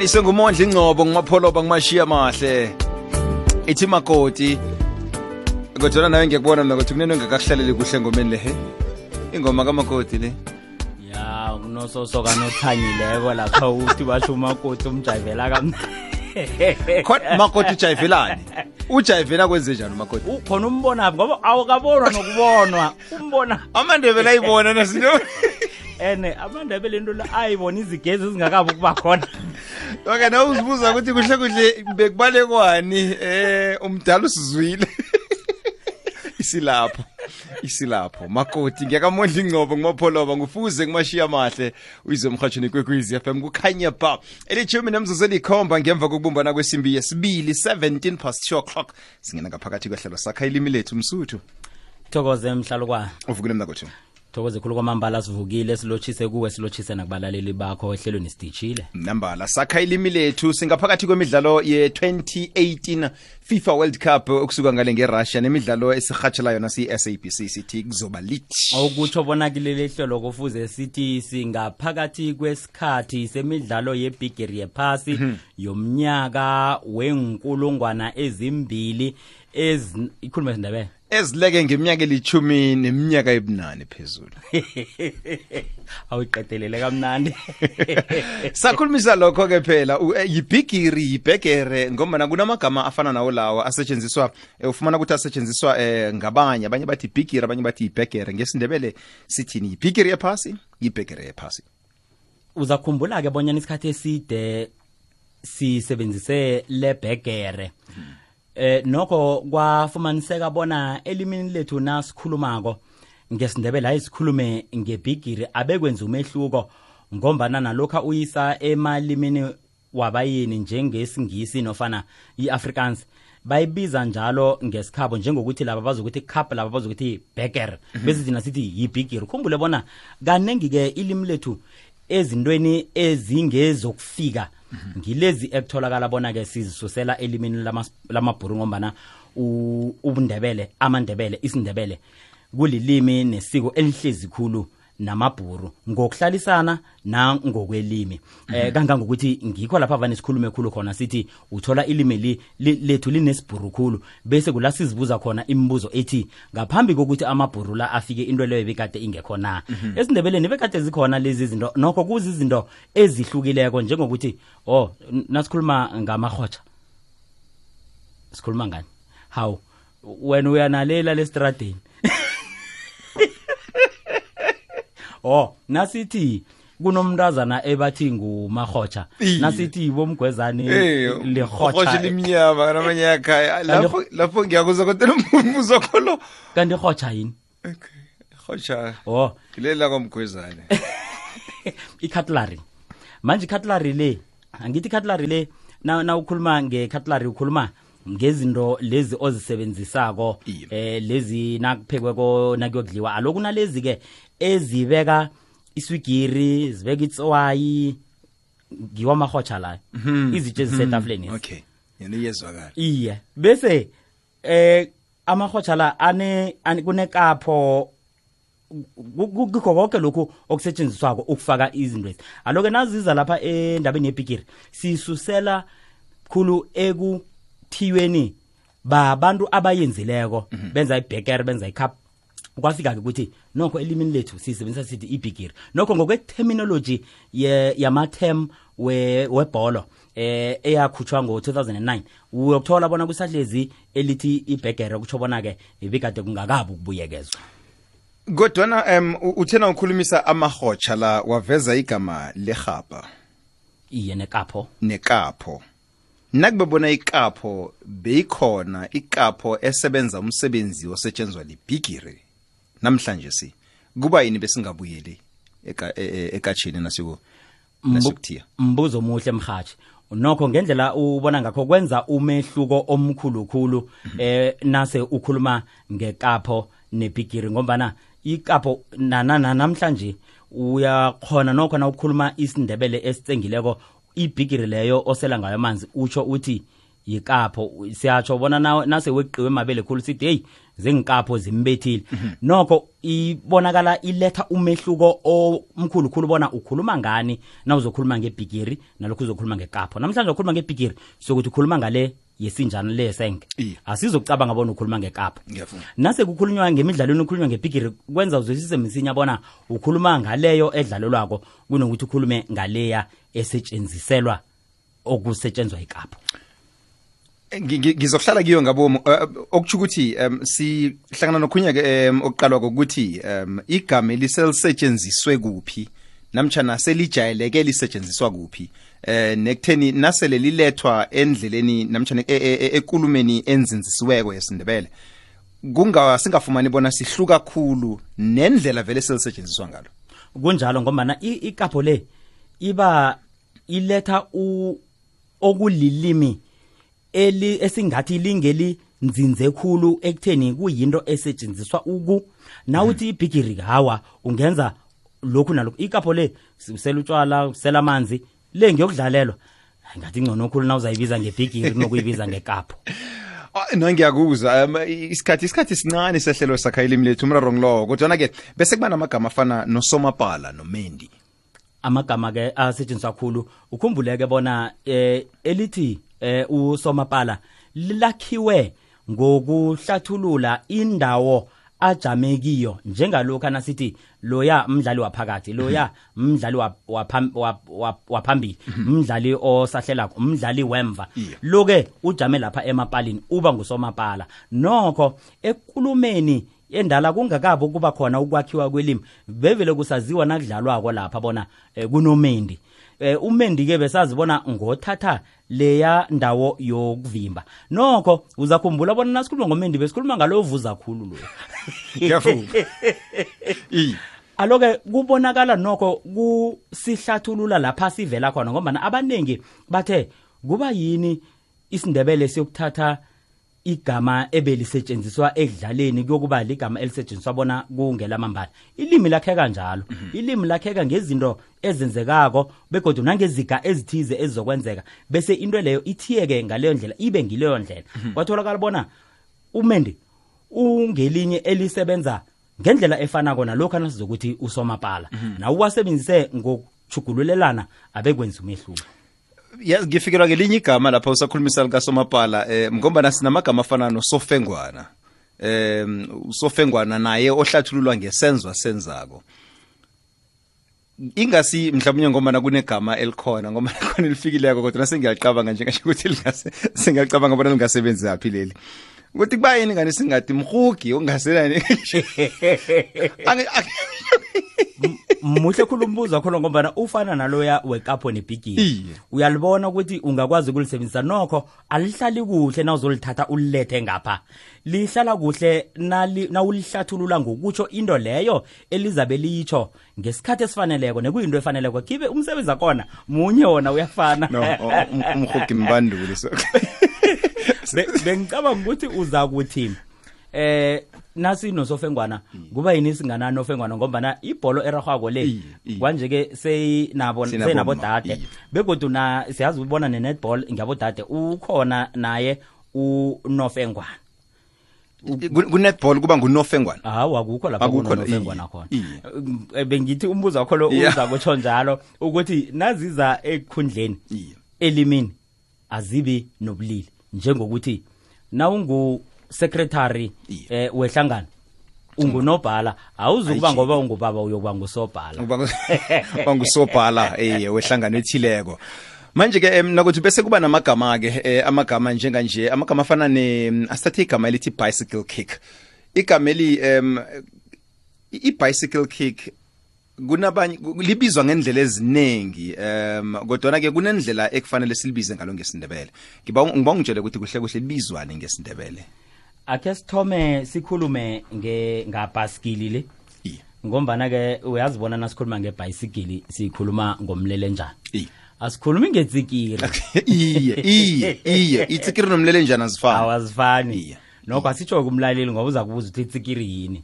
Ihlanganiswe ngumondli Ngcobo ngumapholoba ngumashiya mahle. Ithi makoti. Kodwa nawe ngiyakubona mina ukuthi kunene ngakakuhlaleli kuhle ngomeni le he. Ingoma kamakoti le. Ya kunososoka nothanyileko lapha uthi basho umakoti umjayivela kamnandi. Khona makoti ujayivelani? Ujayivela kwenze njani umakoti? Ukhona umbona ngoba awukabonwa nokubonwa. Umbona Amandebele ayibona nasinto. Amandebele into la ayibona izigezi ezingakabi ukuba khona. Okay, na uzibuza ukuthi kuhle kuhle bekubalekwani umdala usizwile. Isilapho makoti ngiyakamondla Ngcobo ngumapholoba ngufuze ngumashiya mahle uyizwe emhathweni kwekwezi FM kukhanya ba elithumi nemzuzu elikhomba ngemva kokubumbana kwesimbi yesibili 17 past 2 o'clock singena ngaphakathi kwehlelo sakha ilimi lethu msuthu Thokoze emhlalukwana uvukile mna kotho Thokoze khulu kwamambala sivukile silochise kuwe silochise nakubalaleli bakho ehlelweni sidijile nambala sakha ilimi lethu singaphakathi kwemidlalo ye-2018 FIFA World Cup okusuka ngale ngeRussia nemidlalo esirhatshela yona si-SABC sithi kuzoba lithi okutsho bona kileli hlelo kufuze sithi singaphakathi kwesikhathi semidlalo yebigiri yephasi yomnyaka wenkulungwana ezimbili ikhuluma isindebele ezileke ngeminyaka elithumi neminyaka ebunane phezulu awiqedelele kamnandi sakhulumisa lokho ke phela yibigiri yibhegere ngoba kunamagama afana nawo lawo asetshenziswa ufumana ukuthi asetshenziswa ngabanye abanye bathi bigiri abanye bathi ibhegere ngesindebele sithini yibigiri yephasi yibhegere yephasi uzakhumbula ke bonyana isikhathi eside sisebenzise lebhegere nokho kwafumaniseka bona elimini lethu nasikhulumako ngesindebele ayisikhulume ngebigiri abekwenza umehluko ngombana nalokho uyisa emalimini wabayini njengesingisi nofana iAfrikaans bayibiza njalo ngesikhabo njengokuthi laba bazokuthi cup laba bazokuthi burger bese thina sithi yibigiri khumbule bona kanengi ke ilimi lethu ezintweni ezingezokufika ngilezi ekutholakala bona ke sizisusela elimini lamabhuru ngombana ubundebele amandebele isindebele kulilimi nesiko elihlezi khulu namabhuru ngokuhlalisana na ngokwelimi kangangokuthi ngikho lapha vane sikhulume khulu khona sithi uthola ilimi lethu linesibhuru khulu bese kula sizibuza khona imibuzo ethi ngaphambi kokuthi amabhuru la afike into leyo bekade ingekho na esindebeleni bekade zikhona lezi zinto nokho kuzi izinto ezihlukileko njengokuthi nasikhuluma ngamahotsha sikhuluma ngani how when uyanalela lestradeni nasithi kunomntazana ebathi ngumahotsha nasithi bomgwezane lehotsha limnyama namanye yakhaya lapho ngiyakuza kodwa umbuzo kholo kanti hotsha yini okay hotsha ilela komgwezane icutlery manje cutlery le angithi cutlery le na ukhuluma ngecutlery ukhuluma ngezinto lezi ozisebenzisako lezi nakuphekweko nakuyodliwa alokuna lezi ke ezibeka iswigiri zibeka itswayi ngiwa mahotsha la izitshe ezisetafuleni okay yena iyezwakala iye bese amahotsha la kunekapho kukho konke lokhu okusetshenziswako ukufaka izinto lezi aloke naziza lapha endabeni yebigiri sisusela khulu ekuthiyweni babantu abayenzileko benza ibhekere benza icup kwafika ke ukuthi nokho elimini lethu sisebenzisa sithi ibigiri nokho ngokwe-terminology yama-term webholo eyakhutshwa ngo-2009 uyokuthola bona kusahlezi elithi ibhegere kutsho bona-ke ibikade kungakabi ukubuyekezwa kodwana uthena ukhulumisa amahotsha la waveza igama lehapa iye nekapho nakubona ikapho beyikhona ikapho esebenza umsebenzi osetshenzwa libigiri namhlanje kuba yini besingabuyeli ekatshini nasukuthiya mbuzo muhle mhathi nokho ngendlela ubona ngakho kwenza umehluko omkhulukhulu nase ukhuluma ngekapho nebigiri ngombana ikapho namhlanje uyakhona nokho na ukukhuluma isindebele esitsengileko ibigiri leyo osela ngayo amanzi utsho uthi yikapho siyatsho bona nase weqiwe emabele khulu sithi hey zengikapho zimbethile nokho ibonakala iletha umehluko omkhulu khulu bona ukhuluma ngani na uzokhuluma ngebhigiri nalokho uzokhuluma ngekapho namhlanje ukhuluma ngebhigiri sokuthi ukhuluma ngale yesinjana lesenge asizokucabanga bona ukhuluma ngekapho nase kukhulunywa ngemidlalweni ukhulunywa ngebhigiri kwenza uzwisise msinya bona ukhuluma ngaleyo edlalelwako kunokuthi ukhulume ngaleya esetshenziselwa okusetshenzwa ikapho. Ngizohlala kiyo ngabomo okuthi ukuthi sihlangana nokhunya ke okuqalwa kokuthi igama elisetshenziswe kuphi namtjana selijayeleke lisetshenziswa kuphi nekutheni nasele lilethwa endleleni namtjana ekulumeni enzinzisiweko yesiNdebele singafumani bona sihluka kakhulu nendlela vele selisetshenziswa ngalo kunjalo ngoba ikapho le iba iletha okulilimi esingathi lingeli nzinze khulu ekutheni kuyinto esetshenziswa nawuthi ibhigiri hawa ungenza lokhu nalokhu ikapho le usela utshwala usela amanzi le ngiyokudlalelwa ngathi ngcono khulu na uzayibiza ngebhigiri nokuyibiza ngekapho. No ngiyakuzwa isikhathi sincane sehlelo sakha ilimi lethu umraro ngilo kodwa ke bese kuba namagama afana noSomapala noMendi amagama ke asetshenziswa kakhulu ukhumbuleke bona elithi uSomapala lakhiwe ngokuhlathulula indawo ajamekiyo njengalokho nasithi loya umdlali waphakathi loya umdlali waphambili umdlali osahlelako umdlali wemva loke ujame lapha emapalini uba nguSomapala nokho ekulumeni endala kungakabo kuba khona ukwakhiwa kwelimi bevele kusaziwa nakudlalwako lapha bona kunoMendi uMendi ke besazibona ngothatha leya ndawo yokuvimba nokho uzakhumbula bona nasikhuluma ngoMendi besikhuluma ngalo ovuza khulu lo ngiyafuna aloke kubonakala nokho kusihlathulula lapha sivela khona ngoba abanengi bathe kuba yini isiNdebele siyokuthatha igama ebelisetshenziswa ekudlaleni kuyokuba ligama elisetshenziswa bona kungelamambala ilimi lakhe kanjalo ilimi lakheka ngezinto ezenzekako begodwa nangeziga ezithize ezizokwenzeka bese into leyo ithiyeke ngaleyo ndlela ibe ngileyo ndlela kwatholakala bona uMendi ungelinye elisebenza ngendlela efana kona lokho nasizokuthi uSomapala na uwasebenzise ngokuchugululelana abekwenza umehluko. Yes, ngifikirwa ngelinye igama lapha usakhulumisa likaSomapala ngoba sinamagama afana noSofengwana uSofengwana naye ohlathululwa ngesenzwa senzako ingasi mhlawumnye ngoba kunegama elikhona ngoba khona lifikileko kodwa sengiyacabanga njengasho ukuthi sengiyacabanga bona lingasebenzi yaphi leli ukuthi kuba yini ngani singathi mhugi ongaselani muhle khulumbuza khona ngoba ufana naloya wekapho nebhigiri uyalibona ukuthi ungakwazi ukulisebenzisa nokho alihlali kuhle na uzolithatha ulilethe ngapha lihlala kuhle na ulihlathulula ngokutsho into leyo elizabe litsho ngesikhathi esifaneleko nekuyinto efaneleko kibe umsebenzi akona munye wona uyafana umhugi mbanduli so bengicabanga ukuthi uza kuthi nasi noSofengwana kuba yini singana noFengwana ngoba ibholo eragwako le kwanje ke seyinabo dade begodwa siyazi ubona nenetball ngiyabo dade ukhona naye uNofengwana kunetball kuba nguNofengwana akukho lapha kuNofengwana khona bengithi umbuzo wakho lo uza kutsho njalo ukuthi naziza ekhundleni elimini azibi nobulili njengokuthi na secretary wehlangano ungunobhala awuzukuba ngoba ungubaba uyokuba ngusobhala bangusobhala wehlangano ethileko manje ke nakuthi bese kuba namagama ke amagama njenganje amagama afana asithathe igama elithi bicycle kick igama eli i-bicycle kick kunabanye libizwa ngendlela eziningi kodwa ke kunendlela ekufanele silibize ngalo ngesindebele ngiba ungitshele ukuthi kuhle kuhle libizwane ngesindebele ake sithome sikhulume ngabhasikili le ngombana ke uyazibona nasikhuluma ngebicycle sikhuluma ngomlelenjana asikhulumi ngezikiri iye itsikiri nomlelenjana azifani nokho asitsho kumlaleli ngoba uza kubuza ukuthi itsikiri yini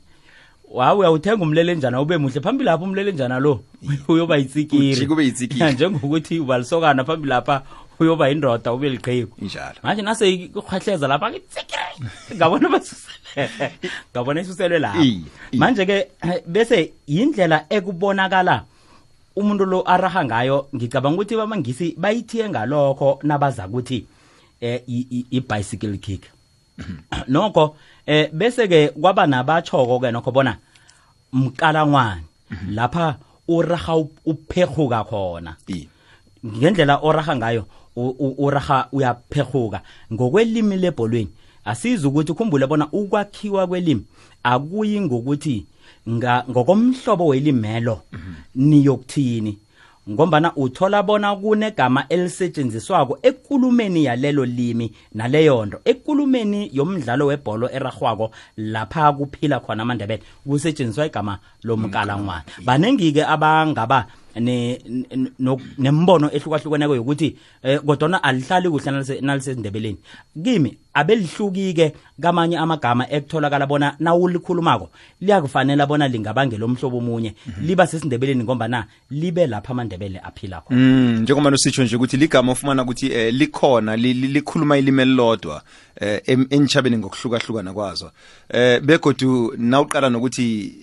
uyawuthenga umlelenjana ube muhle phambili lapha umlelenjana lo uyoba itsikiri kube itsikiri njengokuthi ubalisokana phambili lapha uyoba indoda ube liqheku injalo manje nase ikhahleza lapha ngabona basusele ngabona isuselwe lapha manje ke bese indlela ekubonakala umuntu lo araha ngayo ngicabanga ukuthi bamangisi bayithiye ngalokho nabaza ukuthi i-bicycle kick nokho bese ke kwaba nabachoko ke nokho bona mkalangwane lapha uraha uphekhuka khona ngendlela oraha ngayo uraha uyaphekhuka ngokwelimi lebholweni asiza ukuthi ukhumbule bona ukwakhiwa kwelimi akuyi ngokuthi ngokomhlobo welimelo niyokuthini ngombana uthola bona kunegama elisetshenziswako ekulumeni yalelo limi naleyonto ekulumeni yomdlalo webholo eragwako lapha kuphila khona amandebele kusetshenziswa igama lomkalangwane banengi ke abangaba nembono ehlukahlukeneko yokuthi kodwa alihlali kuhle nalisendebeleni kimi abelihlukike kamanye amagama ekutholakala bona nawulikhulumako liyakufanele bona lingabangela omhlobo omunye liba sesindebeleni ngombana libe lapha amandebele aphila khona njengoba usitsho nje ukuthi ligama ufumana ukuthi likhona likhuluma ilimi elilodwa enchabeni ngokuhlukahlukana kwazo begodu nawuqala nokuthi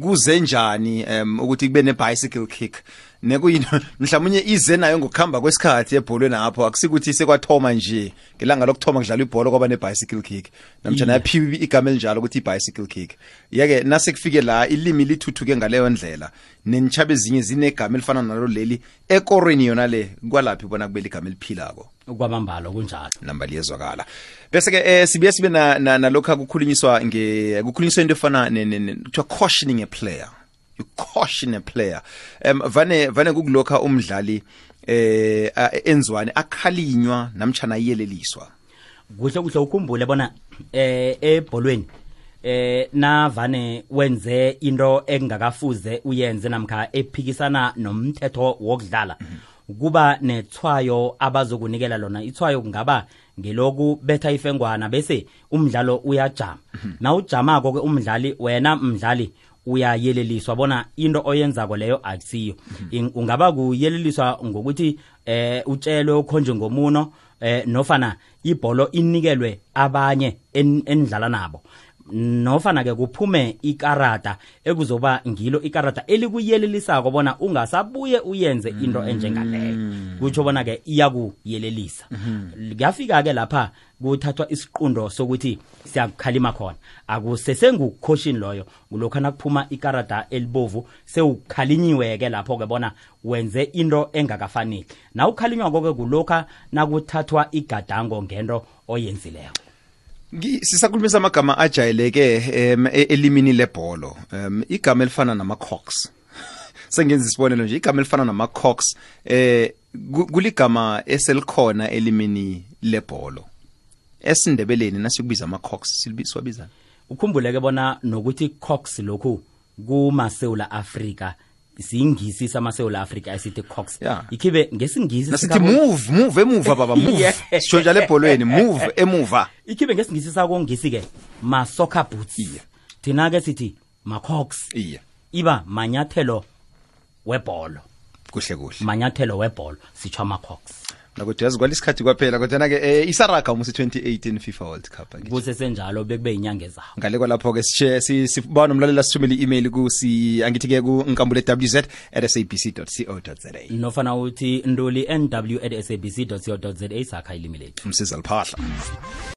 kuze njani ukuthi kube ne-bicycle kick nekuyinto mhlawumnye ize nayo ngokuhamba kwesikhathi ebholweni lapho akusikuthi sekwathoma nje ngelanga lokuthoma kudlalwa ibhola kwaba ne-bicycle kick namtjana yaphiwa igama elinjalo ukuthi i-bicycle kick yake nase kufike la ilimi lithuthuke ngaleyo ndlela nenchabe ezinye zinegama elifana nalo leli ekorweni yona le kwalaphi bona kubele igama eliphilako kwamambalo kunjalo namba liyezwakala bese ke sibuye sibe nalokho kukhulunyiswa kukhulunyiswa into efana to cautioning a player you caution a player vane kukulokha umdlali enzwane akhalinywa namtjana yeleliswa kuhle ukhumbule bona ebholweni navane wenze into engakafuze uyenze namkha ephikisana nomthetho wokudlala kuba nethwayo abazokunikela lona ithwayo kungaba ngeloku betha ifengwana bese umdlalo uyajama na ujamako ke umdlali wena umdlali uyayeleliswa bona into oyenzako leyo akusiyo ungaba kuyeleliswa ngokuthi utshelwe ukhonje ngomuno nofana ibholo inikelwe abanye endlala nabo nofana ke kuphume ikarata ekuzoba ngilo ikarata elikuyelelisako bona ungasabuye uyenze into enjengaleyo kutsho bona ke iyakuyelelisa kuyafika ke lapha kuthathwa isiqundo sokuthi siyakukhalima khona akusesengucaution loyo kulokho nakuphuma ikarata elibovu sewukhalinyiwe ke lapho ke bona wenze into engakafanele na ukhalinywa konke kulokho nakuthathwa igadango ngento oyenzileko sisakhulumisa amagama ajayeleke elimini lebholo igama elifana nama-cocks sengenza isibonelo nje igama elifana nama-cocks kuligama eselikhona elimini lebholo esindebeleni nasikubiza ama-cocks siwabiza ukhumbuleke bona nokuthi cocks lokhu kumaSewula Afrika singisi samaSewula Afrika esithi cocks ikhibe ngesingisi nasithi move emuva baba move sisho njalo ebholweni move emuva ikhibe ngesingisi sako ngisi ke ma soccer boots thina ke sithi ma cocks iba manyathelo webholo kuhle manyathelo webholo sitsho ama cocks nakuthi yazi kwalisikhathi kwaphela kodwa ke isaraga umusi 2018 FIFA World Cup kuse senjalo bekube inyanga ezayo ngale kwalapho ke siba nomlalela sithumela i-email angithi ke ku nkambule.wz@sabc.co.za nofana uthi nduli nw@sabc.co.za sakha ilimi lethu umsiza liphahla